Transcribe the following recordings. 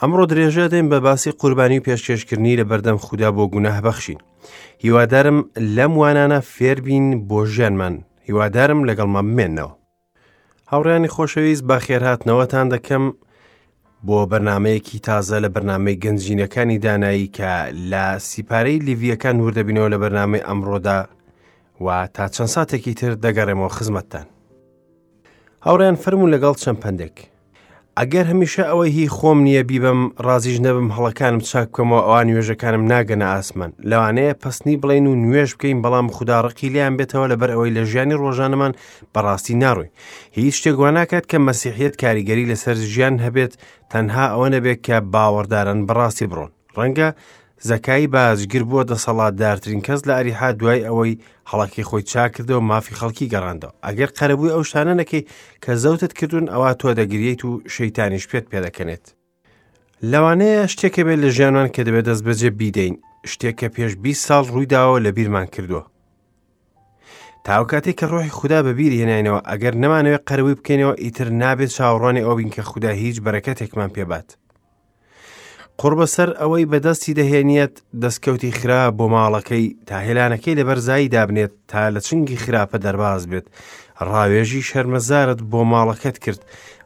ئەمڕۆ درێژە دەین بە باسی قوربانی و پێشکێشکردنی لە بەردەم خودا بۆ گوناه بەخشین. هیوادارم لەم وانانە فێربین بۆ ژیانمان، هیوادارم لەگەڵمان بمێنەوە. هاوڕیانی خۆشەویست بە خێرهاتنەوەتان دەکەم بۆ بەرنمەیەکی تازە لە بەرنمەی گەنجینەکانی دانایی کە لە سیپارەی لیڤیەکان وردەبینەوە لە بەرنمەی ئەمڕۆدا و تا چەند ساتێکی تر دەگەڕێمەوە خزمەتتان. هاوڕێیان فەرموون لەگەڵ چەند پەندێک. ئەگەر هەمیشە ئەوەی هی خۆم نییە بیبەم ڕازیش نەبم هەڵەکانم چاک بکەمەوە ئەوا نوێژەکانم ناگەنە ئاسمان لەوانەیە پەسنی بڵێن و نوێژ بکەین بەڵام خودا ڕقی لێیان بێتەوە لەبەر ئەوەی لە ژیانی ڕۆژانەمان بەڕاستی ناڕۆین هیچ شتێک وا ناکات کە مەسیحیەت کاریگەری لەسەر ژیان هەبێت تەنها ئەوە نەبێت کە باوەڕداران بەڕاستی بڕۆن ڕەنگە زەکای باجگر بووە دەسەڵاتدارترین کەس لە ئەریحا دوای ئەوەی هەڵەکەی خۆی چاکردەوە مافی خەڵکی گەڕاندەوە ئەگەر قەرەبووی ئەو شتانە نەکەی کە زەوتت کردوون ئەوا تۆ دەگریت و شەیتانیش پێت پێدەکەنێت لەوانەیە شتێکە بێت لە ژیانمان کە دەبێت دەست بەجێ بیدەین شتێک کە پێش 20 ساڵ ڕوویداوە لە بیرمان کردووە تاو کاتێک کە ڕۆحی خودا بەبیر هێناینەوە ئەگەر نەمانەوێت قەرەبووی بکەینەوە ئیتر نابێت چاوەڕوانی ئەوە بین کە خودا هیچ بەرەکەتێکمان پێبات قوڕبەسەر ئەوەی بەدەستی دەهێنیەت دەستکەوتی خراپ بۆ ماڵەکەی تا هێلانەکەی لە بەرزایی دابنێت تا لە چنگی خراپە دەرباز بێت ڕاوێژی شەرمەزارت بۆ ماڵەکەت کرد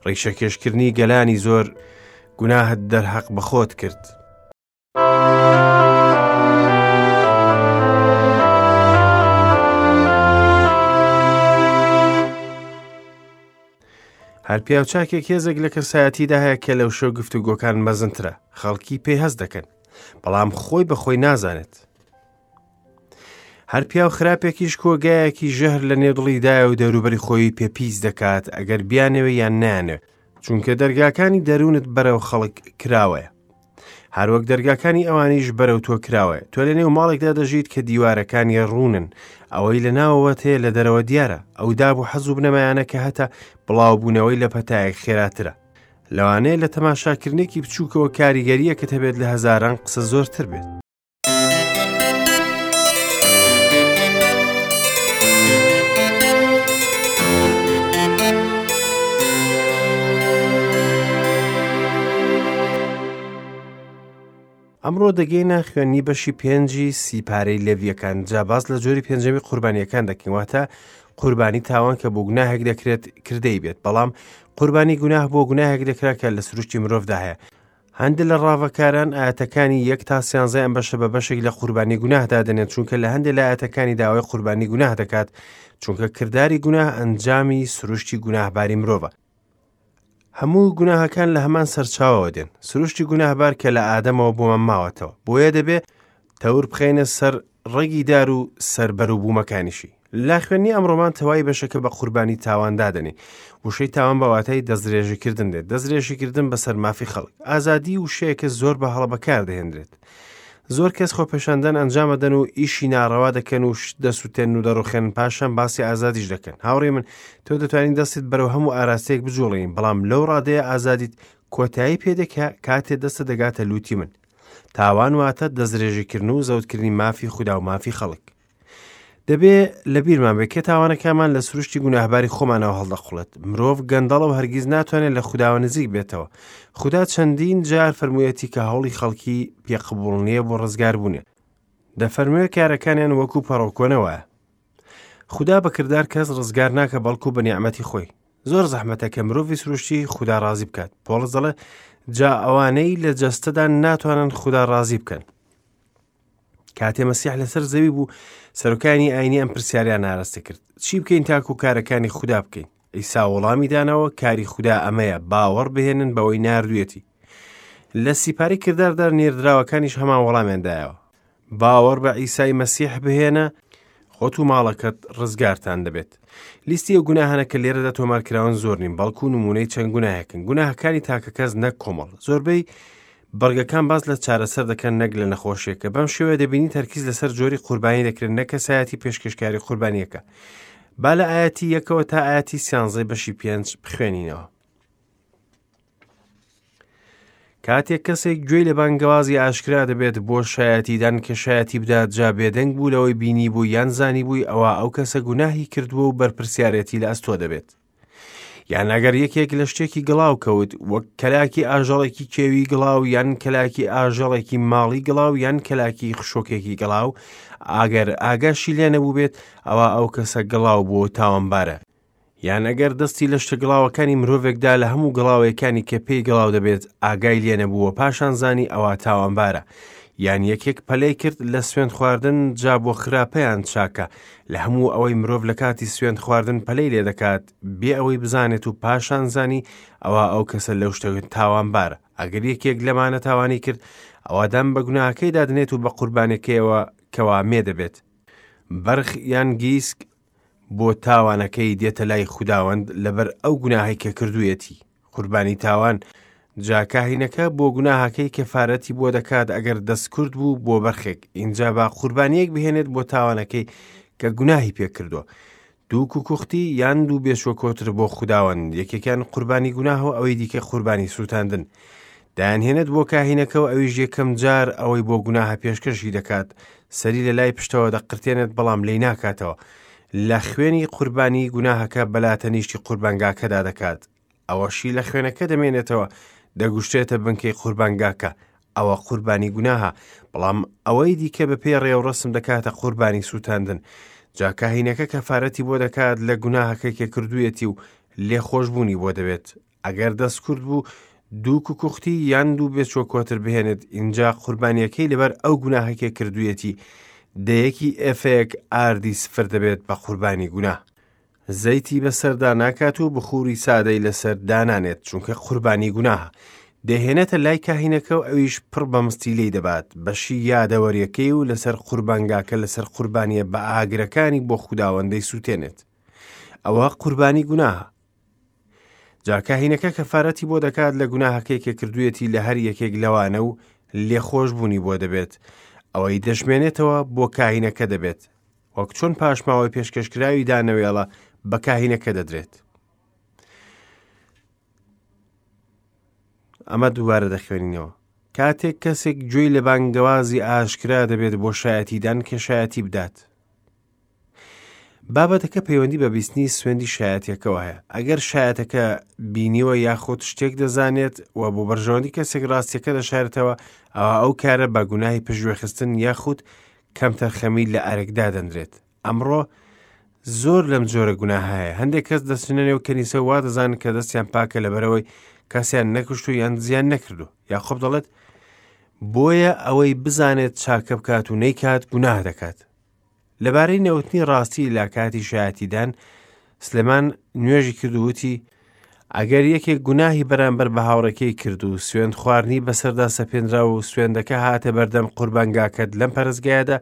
ڕیشەکێشکردنی گەلانی زۆر گوناهت دەرهەق بە خۆت کرد. هەر پیاوچاکێک هێزێک لە کەسایەتیدا هەیە کە لەو شەو گفتوگۆکان مەزنترە خەڵکی پێی هەست دەکەن بەڵام خۆی بە خۆی نازانێت هەر پیاو خراپێکیش کۆگایەکی ژەهر لە نێو دڵیدایە و دەوروبەری خۆی پێ پیس دەکات ئەگەر بیانەوێ یان نانێ چونکە دەرگاکانی دەروونت بەرەو خەڵک کراوەیە هەروەک دەرگاکانی ئەوانیش بەرەو تۆ کراوەیە تۆ لە نێو ماڵێکدا دەژیت کە دیوارەکانی ڕوونن ئەوەی لە ناوەوەت هەیە لە دەرەوە دیارە ئەو داب و حەز و بنەمایانە کە هەتە بڵاوبوونەوەی لە پەتایەک خێراترە لەوانەیە لە تەماشاکردنێکی بچووکەوە کاریگەریەکەت هەبێت لە هەزاران قسە زۆرتر بێت. ئەمڕۆ دەگەینە خوێندنی بەشی پێنجی سیپارەی لێڤیەکان جا باس لە جۆری پێنجەمی قوربانیەکان دەکەین واتە قوربانی تاوان کە بۆ گوناهێک دەکرێت کردەی بێت بەڵام قوربانی گوناه بۆ گوناهێک دەکرا کە لە سروشتی مرۆڤدا هەیە هەندێک لە ڕاڤەکاران ئاەتەکانی یەک تا سیانزای ئەم بەشە بە بەشێک لە قوربانی گوناه دادەنێن چونکە لە هەندێک لە ئاەتەکانی داوای قوربانی گوناه دەکات چونکە کرداری گوناه ئەنجامی سروشتی گوناهباری مرۆڤە هەموو گوناهەکان لە هەمان سەرچاوەوە دێن سروشتی گوناهبار کە لە ئادەمەوە بۆمان ماوەتەوە بۆیە دەبێ تەور بخەینە سەر ڕەگی دار و سەر بەروبوومەکانیشی لە خوێندنی ئەمڕۆمان تەوای بەشەکە بە قوربانی تاوان دادەنێ وشەی تاوان بە واتای دەستدرێژیکردن دێت دەستدرێژیکردن بەسەر مافی خەڵک ئازادی وشەیەکە زۆر بە هەڵە بەکاردەهێنرێت زۆر کەس خۆپێشاندان ئەنجامەدەن و ئیشی ناڕەوا دەکەن و شت دەسووتێن و دەڕوخێن پاشان باسی ئازادیش دەکەن هاوڕێ من تۆ دەتوانین دەستت بەرەو هەموو ئاراستەیەک بجوڵێین بەڵام لەو ڕادەیە ئازادیت کۆتایی پێدێکە کاتێ دەستە دەگاتە لوتی من تاوان واتە دەستدرێژیکردن و زەوتکردنی مافی خودا و مافی خەڵک دەبێ لە بیرمان بێت کە تاوانەکانمان لە سروشتی گوناهباری خۆمانەوە هەڵدەقوڵێت مرۆڤ گەندەڵە و هەرگیز ناتوانێت لە خوداوە نزیک بێتەوە خودا چەندین جار فەرموویەتی کە هەوڵی خەڵکی پێ قبوڵ نییە بۆ ڕزگاربوونێ دەفەرموێ کارەکانیان وەکو پەڕۆکۆنە وایە خودا بە کردار کەس ڕزگار ناکە بەڵکو بە نیعمەتی خۆی زۆر زەحمەتە کە مرۆڤی سروشتی خودا ڕازی بکات پۆڵس دەڵێ جا ئەوانەی لە جەستەدان ناتوانن خودا ڕازی بکەن کاتێ مەسیح لەسەر زەوی بوو سەرۆکانی ئاینی ئەم پرسیاریان ئاراستە کرد چی بکەین تاکو کارەکانی خودا بکەین ئیسا وەڵامی دانەوە کاری خودا ئەمەیە باوەڕ بهێنن بەوەی ناردوێتی لە سیپاری کرداردا نێردراوەکانیش هەمان وەڵامیان دایەوە باوەڕ بە ئیسای مەسیح بهێنە خۆت و ماڵەکەت ڕزگارتان دەبێت لیستی ئەو گوناهانە کە لێرەدا تۆمارکراون زۆر نین بەڵکو نمونەی چەند گوناهێکن گوناهەکانی تاکەکەس نەک کۆمەڵ زۆربەی بڕگەکان باس لە چارەسەر دەکەن نەک لە نەخۆشیەکە بەم شێوەیە دەبینی تەرکیز لەسەر جۆری قوربانی دەکرێت نەک کەسایەتی پێشکەشکاری قوربانیەکە با لە ئاەتی یەکەوە تا ئاەتی سیانزەی بەشی پێنج بخوێنینەوە کاتێک کەسێک گوێی لە بانگەوازی ئاشکرا دەبێت بۆ شایەتیدان کە شایەتی بدات جا بێدەنگ بوو لەوەی بینی بوو یان زانی بووی ئەوە ئەو کەسە گوناهی کردووە و بەرپرسیارەتی لە ئەستۆ دەبێت. یان ئەگەر یەکێک لە شتێکی گڵاو کەوت، وەک کەلاکی ئاژەڵێکی کێوی گڵاو یان کەلاکی ئاژەڵێکی ماڵی گڵاو یان کەلاکی خشۆکێکی گڵاو، ئەگەر ئاگاشی لێ نەبووبێت، ئەوا ئەو کەسە گڵاو بووە و تاوانبارە. یان ئەگەر دەستی لە شتە گڵاوەکانی مرۆڤێکدا لە هەموو گڵاوەیەکانی کە پێی گڵاو دەبێت ئاگای لێ نەبوو و پاشان زانی ئەوا تاوانبارە. یان یەکێک پەلەی کرد لە سوێند خواردن جا بۆ خراپە یان چاکە، لە هەموو ئەوەی مرۆڤ لە کاتی سوێند خواردن پەلەی لێ دەکات بێ ئەوەی بزانێت و پاشان زانی ئەوا ئەو کەسە لەو شتە تاوانبارە. ئەگەر یەکێک لەمانە تاوانی کرد ئەوا دان بە گوناهەکەیدا دەنێت و بە قوربانیەکەیەوە کەوا مێ دەبێت، بەرخ یان گیسک، بۆ تاوانەکەی دێتە لای خوداوەند لەبەر ئەو گوناهەی کە کردوویەتی، قوربانی تاوان، جا کاهینەکە بۆ گوناهەکەی کەفارەتی بۆ دەکات ئەگەر دەستکورت بوو بۆ بەرخێک، ئینجا با قوربانییەک بهێنێت بۆ تاوانەکەی کە گوناهی پێ کردووە، دوو کوکوختی یان دوو بێچوە کۆتر بۆ خوداوەند، یەکێکیان قوربانی گوناه و ئەوەی دیکە قوربانی سووتاندن. دایانهێنێت بۆ کاهینەکە و ئەویش یەکەم جار ئەوەی بۆ گوناهە پێشکەشی دەکات، سەری لە لای پشتەوە دەقرتێنێت بەڵام لێی ناکاتەوە، لە خوێنی قوربانی گوناهەکە بەلا تەنیشتی قوربانگاکەدا دەکات، ئەوەشی لە خوێنەکە دەمێنێتەوە دەگوشتێتە بنکەی قوربانگاکە، ئەوە قوربانی گوناهە، بەڵام ئەوەی دیکە بەپێی ڕێوڕەسم دەکاتە قوربانی سووتاندن، جا کاهینەکە کەفارەتی بۆ دەکات لە گوناهەکەی کە کردوویەتی و لێخۆشبوونی بۆ دەبێت. ئەگەر دەستکورت بوو دوو کوکوختی یان دوو بێچوە کۆتر بهێنێت ئینجا قوربانیەکەی لەبەر ئەو گوناهەکە کردوویەتی دەیەکی ئێفەیەک ئاردی سفر دەبێت بە قوربانی گوناه. زەیتی بەسەردا ناکات و بخوری سادەی لەسەر دانانێت چونکە قوربانی گوناهە. دەیهێنێتە لای کاهینەکە و ئەویش پڕ بە مستی لێی دەبات، بەشی یادەوەریەکەی و لەسەر قوربانگاکە لەسەر قوربانیە بە ئاگرەکانی بۆ خوداوەند دەیسووتێنێت. ئەوە قوربانی گوناهە. جا کاهینەکە کەفارەتی بۆ دەکات لە گوناهەکەی کە کردوویەتی لە هەر یەکێک لەوانە و لێخۆشبوونی بۆ دەبێت، ئەوەی دەشمێنێتەوە بۆ کاهینەکە دەبێت، وەک چۆن پاشماوەی پێشکەشکراوی دانەوێڵە بە کاهینەکە دەدرێت. ئەمە دووبارە دەخوێنینەوە. کاتێک کەسێک گوێی لە بانگەوازی ئاشکرا دەبێت بۆ شایەتیدان کە شایەتی بدات. بابەتەکە پەیوەندی بە بیستنی سوێندی شایەتیەکەوە هەیە. ئەگەر شایەتەکە بینیوە یاخود شتێک دەزانێت و بۆ بەرژەوەندی کەسێک ڕاستیەکە دەشارێتەوە، ئەوا ئەو کارە بە گوناهی پشتگوێخستن یاخود کەمتەرخەمی لە ئەرک دادەنرێت. ئەمڕۆ زۆر لەم جۆرە گوناهە هەیە. هەندێک کەس دەچنە نێو کەنیسە و وا دەزانن کە دەستیان پاکە لەبەرئەوەی کەسیان نەکوشت و یان زیان نەکردو. یاقوب دەڵێت بۆیە ئەوەی بزانێت چاکە بکات و نەیکات گوناه دەکات. لەبارەی نەوتنی ڕاستی لە کاتی شایەتیدان، سلێمان نوێژی کرد و وتی، ئەگەر یەکێک گوناهی بەرامبەر بە هاوڕێکەی کرد و سوێند خواردنی بەسەردا سەپێنرا و سوێندەکە هاتە بەردەم قوربانگاکەت لەم پەرستگایەدا،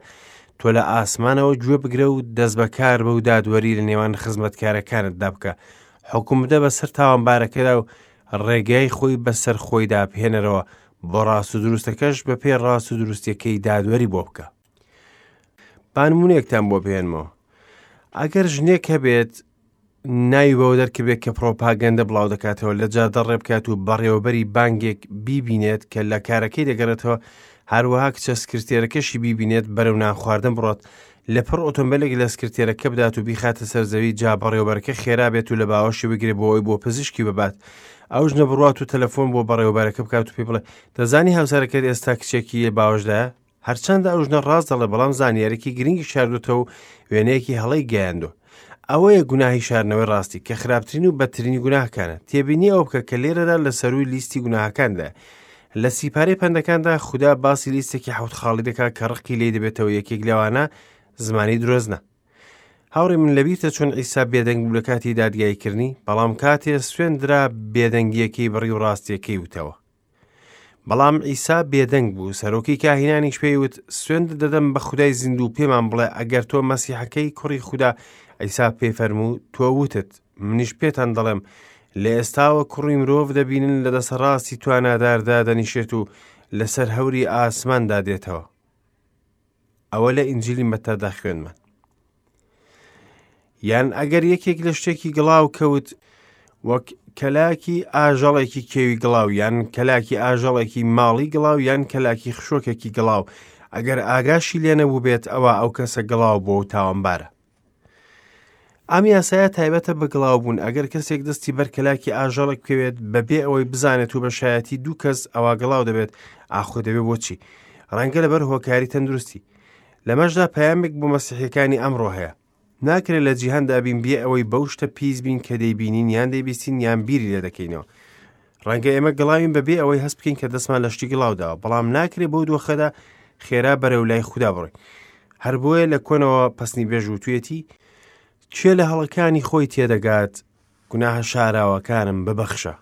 تۆ لە ئاسمانەوە گوێ بگرە و دەستبەکار بە و دادوەری لە نێوان خزمەتکارەکانتدا بکە، حوکم بدە بەسەر تاوانبارەکەدا و ڕێگای خۆی بەسەر خۆیدا بهێنەرەوە، بۆ ڕاست و دروستەکەش بەپێی ڕاست و دروستیەکەی دادوەری بۆ بکە. با نمونەیەکتان بۆ بهێنمەوە ئەگەر ژنێک هەبێت ناوی بەوە دەرکبێت کە پرۆپاگەندە بڵاو دەکاتەوە لە جادە ڕێ بکات و بەڕێوەبەری بانگێک بیبینێت کە لە کارەکەی دەگەڕێتەوە هەروەها کچە سکرتێرەکەشی بیبینێت بەرەو نان خواردن بڕات لە پڕ ئۆتۆمبیلێک لە سکرتێرەکە بدات و بیخاتە سەر زەوی جا بەڕێوەبەرەکە خێرا بێت و لە باوەشی بگرێ بۆ ئەوی بۆ پزیشکی ببات ئەو ژنە بڕات و تەلەفۆن بۆ بەڕێوەبەرەکە بکات و پێی بڵێ دەزانی هاوسەرەکەت ئێستا کچێکی باوەشدایە هەرچەندە ئەو ژنە ڕاست دەڵێ بەڵام زانیارێکی گرنگی شاردوتەوە و وێنەیەکی هەڵەی گەیاندوە. ئەوەیە گوناهی شاردنەوەی ڕاستی کە خراپترین و بەدترینی گوناهەکانە. تێبینی ئەوە بکە کە لێرەدا لە سەرووی لیستی گوناهەکاندایە. لە سیپارەی پەندەکاندا خودا باسی لیستێکی حەوت خاڵی دەکات کە ڕقی لێی دەبێتەوە یەکێک لەوانە زمانی درۆزنە. هاوڕێ من لەبیرتە چۆن عیسا بێدەنگ بوو لە کاتی دادگاییکردنی بەڵام کاتێ سوێند درا بێدەنگییەکەی بڕی و ڕاستییەکەی وتەوە. بەڵام عیسا بێدەنگ بوو، سەرۆکی کاهینانیش پێی وت، سوێند دەدەم بە خودای زیندوو پێمان بڵێ ئەگەر تۆ مەسیحەکەی کوڕی خودا، عیسا پێی فەرموو، تۆ وتت، منیش پێتان دەڵێم، لە ئێستاوە کوڕی مرۆڤ دەبینن لە دەسەڕاستی تواناداردا دەنیشێت و لەسەر هەوری ئاسماندا دێتەوە. ئەوە لە ئینجیلی مەتادا خوێندمان. یان ئەگەر یەکێک لە شتێکی گڵاو کەوت وەک کەلاکی ئاژەڵێکی کێوی گڵاو یان کەلاکی ئاژەڵێکی ماڵی گڵاو یان کەلاکی خشۆکێکی گڵاو ئەگەر ئاگاشی لێ نەبوو بێت ئەوە ئەو کەسە گڵاو بۆ و تاوانبارە. ئەم یاسایە تایبەتە بە گڵاوبوون، ئەگەر کەسێک دەستی بەر کەلاکی ئاژەڵێک بکەوێت بەبێ ئەوەی بزانێت و بە شایەتی دوو کەس ئەوا گڵاو دەبێت، ئاخۆ دەبێت بۆچی؟ ڕەنگە لەبەر هۆکاری تەندروستی. لەمەشدا پەیامێک بۆ مەسیحیەکانی ئەمڕۆ هەیە. ناکرێت لە جیهاندا بین بێ ئەوەی بەو شتە پیس بین کە دەیبینین یان دەیبیستین یان بیری لێ دەکەینەوە. ڕەنگە ئێمە گڵاوین بەبێ ئەوەی هەست بکەین کە دەستمان لە شتی گڵاو داوە، بەڵام ناکرێت بەو دۆخەدا خێرا بەرەو لای خودا بڕۆین. هەر بۆیە لە کۆنەوە پەسنی بێژ وتویەتی، کێ لە هەڵەکانی خۆی تێدەگات، گوناهە شاراوەکانم ببەخشە.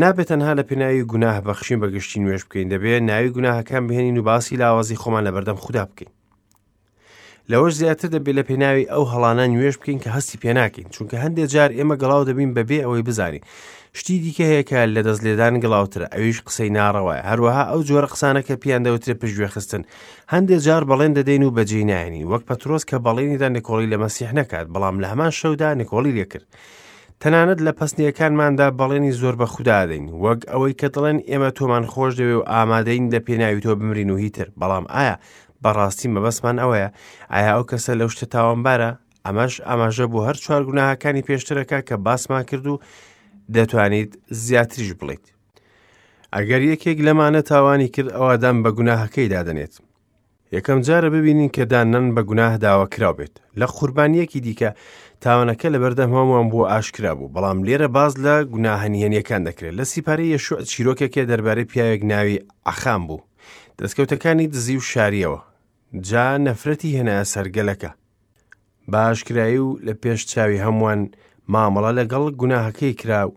نابێت تەنها لە پێناوی گوناه بەخشین بە گشتی نوێژ بکەین، دەبێت ناوی گوناهەکان بهێنین و باسی لاوازی خۆمان لەبەردەم خودا بکەین. لەوەش زیاتر دەبێت لە پێناوی ئەو هەڵانە نوێژ بکەین کە هەستی پێناکەین، چونکە هەندێک جار ئێمە گڵاو دەبین بەبێ ئەوەی بزانین. شتی دیکە هەیە کە لە دەست لێدان گڵاوترە، ئەویش قسەی ناڕەوایە. هەروەها ئەو جۆرە قسانە کە پێیان دەوترێت پشتگوێخستن. هەندێک جار بەڵێن دەدەین و بەجێی نایەنین، وەک پەترۆس کە بەڵێنیدا نکۆڵی لە مەسیح نەکات، بەڵام لە هەمان شەودا نکۆڵی لێکرد. تەنانەت لە پەسنیەکانماندا بەڵێنی زۆر بە خودا دەین، وەک ئەوەی کە دەڵێن ئێمە تۆمان خۆش دەوێ و ئامادەین لە پێناوی تۆ بمرین و هیتر، بەڵام ئایا بەڕاستی مەبەستمان ئەوەیە؟ ئایا ئەو کەسە لەو شتە تاوانبارە؟ ئەمەش ئاماژە بۆ هەر چوار گوناهەکانی پێشترەکە کە باسمان کرد و دەتوانیت زیاتریش بڵیت. ئەگەر یەکێک لەمانە تاوانی کرد ئەوا دان بە گوناهەکەی دادەنێت. یەکەم جارە ببینین کە داننان بە گوناه داوا کراو بێت. لە قوربانیەکی دیکە تاوانەکە لەبەردەم هەمووان بووە ئاشکرا بوو، بەڵام لێرە باس لە گوناهە نهێنیەکان دەکرێت. لە سیپارەی یەشوع چیرۆکێکێ دەربارەی پیاوێک ناوی عەخام بوو. دەستکەوتەکانی دزی و شاریەوە. جا نەفرەتی هێنایە سەر گەلەکە. بە ئاشکرایی و لە پێش چاوی هەمووان مامەڵە لەگەڵ گوناهەکەی کرا و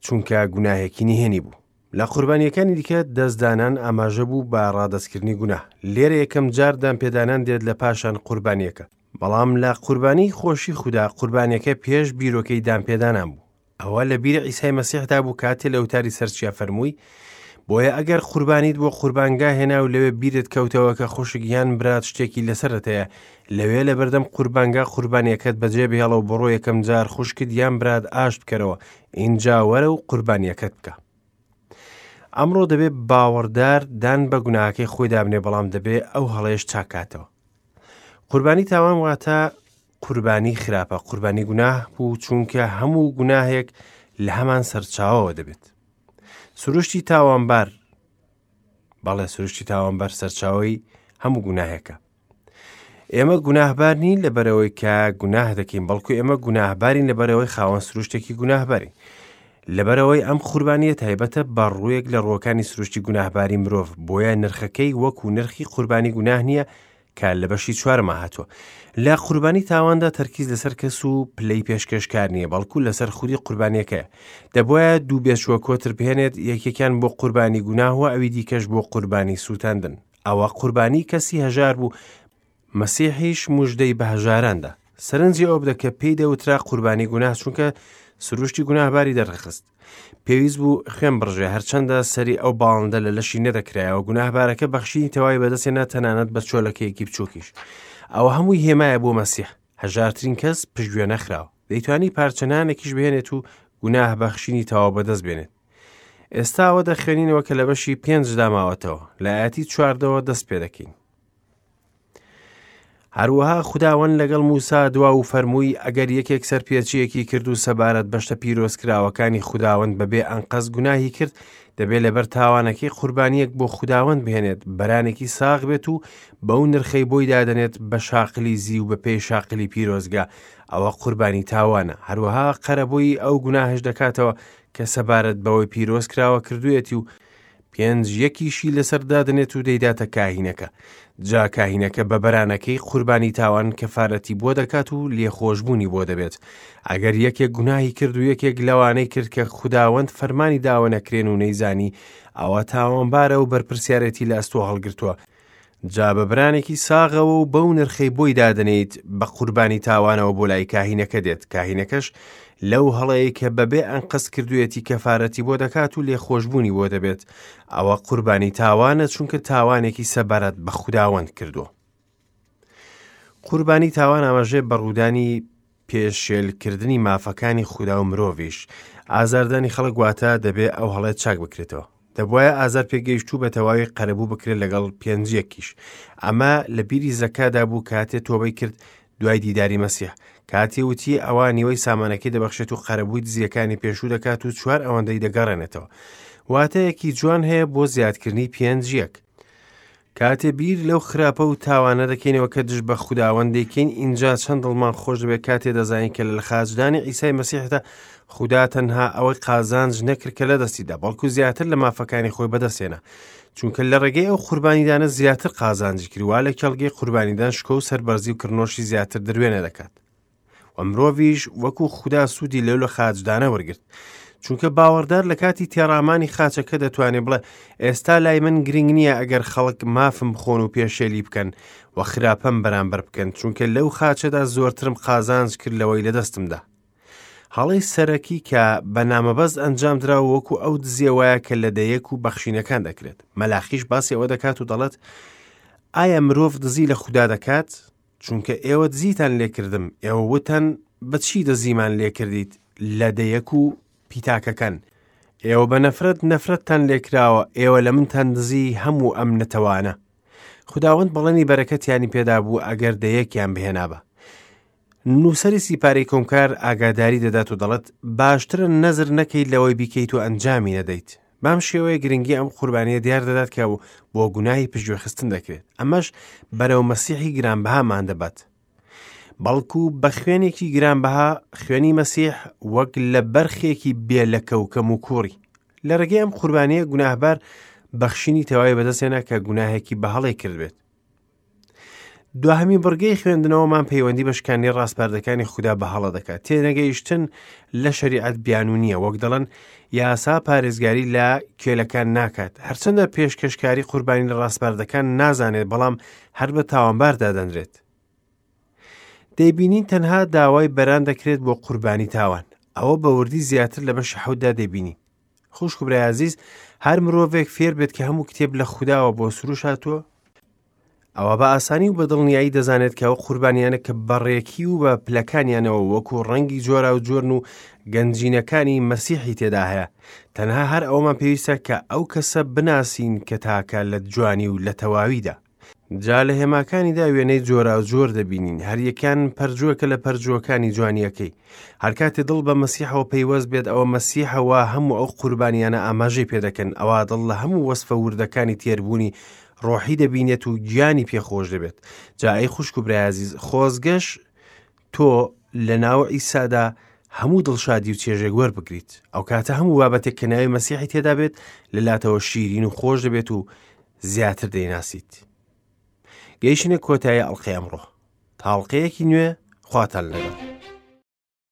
چونکە گوناهێکی نهێنی بوو. لە قوربانیەکانی دیکە دەستدانان ئاماژە بوو بە ڕادەستکردنی گوناه. لێرە یەکەم جار دانپێدانان دێت لە پاشان قوربانیەکە. بەڵام لە قوربانی خۆشی خودا قوربانیەکە پێش بیرۆکەی دانپێدانان بوو. ئەوە لە بیری عیسای مەسیحدا بوو کاتێ لە وتاری سەر چیا فەرمووی، بۆیە ئەگەر قوربانیت بۆ قوربانگا هێنا و لەوێ بیرت کەوتەوە کە خوشک یان برات شتێکی لەسەرت هەیە، لەوێ لەبەردەم قوربانگا قوربانیەکەت بەجێ بهێڵە و بڕۆ یەکەم جار خوشکت یان برات ئاشت بکەرەوە، ئینجا وەرە و قوربانیەکەت بکە. ئەمڕۆ دەبێ باوەڕدار دان بە گوناهەکەی خۆی دابنێ، بەڵام دەبێ ئەو هەڵەیەش چاکاتەوە. قوربانی تاوان واتە قوربانی خراپە، قوربانی گوناه بوو، چونکە هەموو گوناهێک لە هەمان سەرچاوەوە دەبێت. سروشتی تاوانبار، بەڵێ سروشتی تاوانبار سەرچاوەی هەموو گوناهێکە. ئێمە گوناهبار نین لەبەرەوەی کە گوناه دەکەین، بەڵکو ئێمە گوناهبارین لەبەرەوەی خاوەن سروشتێکی گوناهبارین. لەبەرەوەی ئەم قوربانیە تایبەتە بە ڕوویەک لە ڕووەکانی سروشتی گوناهباری مرۆڤ، بۆیە نرخەکەی وەکو نرخی قوربانی گوناه نییە کە لە بەشی چوارەما هاتووە. لە قوربانی تاواندا تەرکیز لەسەر کەس و پلەی پێشکەشکار نییە، بەڵکو لەسەر خودی قوربانیەکەیە. دەبوایە دوو بێچووە کۆتر بهێنێت، یەکێکیان بۆ قوربانی گوناه و ئەوی دیکەش بۆ قوربانی سووتاندن. ئەوە قوربانی کەسی هەژار بوو، مەسیحیش مژدەی بە هەژاران دا. سەرنجی ئەوە بدە کە پێی دەوترا قوربانی گوناه، چونکە سروشتی گوناهباری دەرخست. پێویست بوو خوێن بڕژێ، هەرچەندە سەری ئەو باڵندە لە لەشی نەدەکرایەوە، گوناهبارەکە بەخشینی تەواوی بەدەستهێنا، تەنانەت بە چۆلەکەیەکی بچووکیش. ئەوە هەمووی هێمایە بۆ مەسیح. هەژارترین کەس پشتگوێ نەخراوە. دەیتوانی پارچە نانێکیش بهێنێت و گوناه بەخشینی تەواو بەدەست بێنێت. ئێستا ئەوە دەخوێنینەوە کە لە بەشی پێنجدا ماوەتەوە. لە ئایەتی چواردەوە دەست پێ دەکەین. هەروەها خوداوەند لەگەڵ موسا دوا و فەرمووی ئەگەر یەکێک سەرپێچیەکی کرد و سەبارەت بە شتە پیرۆزکراوەکانی خوداوەند بەبێ ئەنقەست گوناهی کرد، دەبێ لەبەر تاوانەکەی قوربانیەک بۆ خوداوەند بهێنێت، بەرانێکی ساغ بێت و بەو نرخەی بۆی دادەنێت بە شاقلی زیو بە پێی شاقلی پیرۆزگا، ئەوە قوربانی تاوانە. هەروەها قەرەبووی ئەو گوناهەش دەکاتەوە کە سەبارەت بەوەی پیرۆز کراوە کردوویەتی و پێنج یەکیشی لەسەر دادەنێت و دەیداتە کاهینەکە. جا کاهینەکە بە بەرانەکەی قوربانی تاوان کەفارەتی بۆ دەکات و لێخۆشبوونی بۆ دەبێت. ئەگەر یەکێک گوناهی کرد و یەکێک لەوانەی کرد کە خوداوەند فەرمانی داوە نەکرێن و نەیزانی، ئەوە تاوانبارە و بەرپرسیارێتی لە ئەستۆ هەڵگرتووە. جا بە برانێکی ساغەوە و بەو نرخەی بۆی دادەنێیت بە قوربانی تاوانەوە بۆ لای کاهینەکە دێت، کاهینەکەش لەو هەڵەیەی کە بەبێ ئەنقەست کردوویەتی کەفارەتی بۆ دەکات و لێخۆشبوونی بۆ دەبێت، ئەوە قوربانی تاوانە چونکە تاوانێکی سەبارەت بە خوداوەند کردووە. قوربانی تاوان ئاماژەیە بە ڕوودانی پێشێلکردنی مافەکانی خودا و مرۆڤیش. ئازاردانی خەڵک واتە دەبێ ئەو هەڵەیە چاک بکرێتەوە. دەبوایە ئازار پێگەیشتوو بە تەواوی قەرەبوو بکرێت لەگەڵ پێنجیەکیش. ئەمە لە بیری زەکادا بوو کاتێ تۆبەی کرد. دوای دیداری مەسیح کاتێ وتی ئەوا نیوەی سامانەکەی دەبەخشێت و قەرەبووی دزیەکانی پێشوو دەکات و چوار ئەوەندەی دەگەڕێنێتەوە. واتەیەکی جوان هەیە بۆ زیادکردنی پێنج یەک. کاتێ بیر لەو خراپە و تاوانە دەکەینەوە کە دژ بە خوداوەند دەیکەین ئینجا چەند دڵمان خۆش دەبێت کاتێ دەزانین کە لە خاچدانی عیسای مەسیحدا خودا تەنها ئەوەی قازانج نەکرد کە لە دەستیدا بەڵکو زیاتر لە مافەکانی خۆی بەدەستێنا چونکە لە ڕێگەی ئەو قوربانیدانە زیاتر قازانجی کرد وا لە کێڵگەی قوربانیدان شکۆ و سەربەرزی و کڕنۆشی زیاتر دروێنە دەکات و مرۆڤیش وەکو خودا سوودی لەو لە خاچدانە وەرگرت چونکە باوەڕدار لە کاتی تێڕامانی خاچەکە دەتوانێت بڵێ ئێستا لای من گرنگ نییە ئەگەر خەڵک مافم بخۆن و پێشێلی بکەن و خراپەم بەرامبەر بکەن چونکە لەو خاچەدا زۆرترم قازانج کرد لەوەی لە دەستمدا هەڵەی سەرەکی کە بە نامەبەست ئەنجام دراوە وەکو ئەو دزیە وایە کە لە دەیەک و بەخشینەکان دەکرێت. مەلاخیش باسی ئەوە دەکات و دەڵێت، ئایا مرۆڤ دزی لە خودا دەکات؟ چونکە ئێوە دزیتان لێکردم، ئێوە وتان بە چی دزیمان لێکردیت؟ لە دەیەک و پیتاکەکان. ئێوە بە نەفرەت نەفرەتتان لێکراوە، ئێوە لە منتان دزی هەموو ئەم نەتەوانە. خوداوەند بەڵێنی بەرەکەتیانی پێدابوو ئەگەر دەیەکیان بهێنابا. نووسەری سیپارەی کۆمکار ئاگاداری دەدات و دەڵێت، باشترە نەزر نەکەیت لەوەی بیکەیت و ئەنجامی نەدەیت. بەم شێوەیە گرنگی ئەم قوربانییە دیار دەدات کە بۆ گوناهی پشتگوێخستن دەکرێت. ئەمەش بەرەو مەسیحی گرانبەهامان دەبات. بەڵکو بە خوێنێکی گرانبەها، خوێنی مەسیح وەک لە بەرخێکی بێ لەکە و کەموکوڕی. لە ڕێگەی ئەم قوربانییە گوناهبار بەخشینی تەواوی بەدەستهێنا کە گوناهێکی بە هەڵەی کردبێت. دواهەمین بڕگەی خوێندنەوەمان پەیوەندی بە شکاندنی ڕاسپاردەکانی خودا بە هەڵە دەکات. تێنەگەیشتن لە شەریعەت بیانوو نییە، وەک دەڵێن یاسا پارێزگاری لە کێلەکان ناکات. هەرچەندە پێشکەشکاری قوربانی لە ڕاسپاردەکان نازانێت، بەڵام هەر بە تاوانبار دادەنرێت. دەیبینین تەنها داوای بەران دەکرێت بۆ قوربانی تاوان. ئەوە بە وردی زیاتر لە بەشی حەوتدا دەیبینین. خوشک و برای ئازیز، هەر مرۆڤێک فێر بێت کە هەموو کتێب لە خوداوە بۆ سروش هاتووە، ئەوا بە ئاسانی و بە دڵنیایی دەزانێت کە ئەو قوربانیانە کە بەڕێکی و بە پلەکانیانەوە وەکو ڕەنگی جۆرا و جۆرن و گەنجینەکانی مەسیحی تێدا هەیە تەنها هەر ئەومان پێویستە کە ئەو کەسە بناسین کە تاکە لە جوانی و لە تەواویدا جا لە هێماکانیدا وێنەی جۆراوجۆر دەبینین، هەریەکەیان پەرجووەکە لە پەرجووەکانی جوانییەکەی. هەرکاتێ دڵ بە مەسیحەوە پەیوەست بێت، ئەوە مەسیحە وا هەموو ئەو قوربانیانە ئاماژەی پێدەکەن، ئەوا دڵ لە هەموو وەسفە وردەکانی تێربوونی ڕۆحی دەبینێت و گیانی پێ خۆش دەبێت. جا ئەی خوشک و برای ئازیز، خۆزگەش تۆ لە ناو عیسادا هەموو دڵشادی و چێژێک وەربگریت. ئەو کاتە هەموو بابەتێک کە ناوی مەسیحی تێدا بێت لە لاتەوە شیرین و خۆش دەبێت و زیاتر دەیناسیت. گەیشتینە کۆتایی ئەڵقەی ئەمڕۆ. تا ئەڵقەیەکی نوێ خواتان لەگەڵ.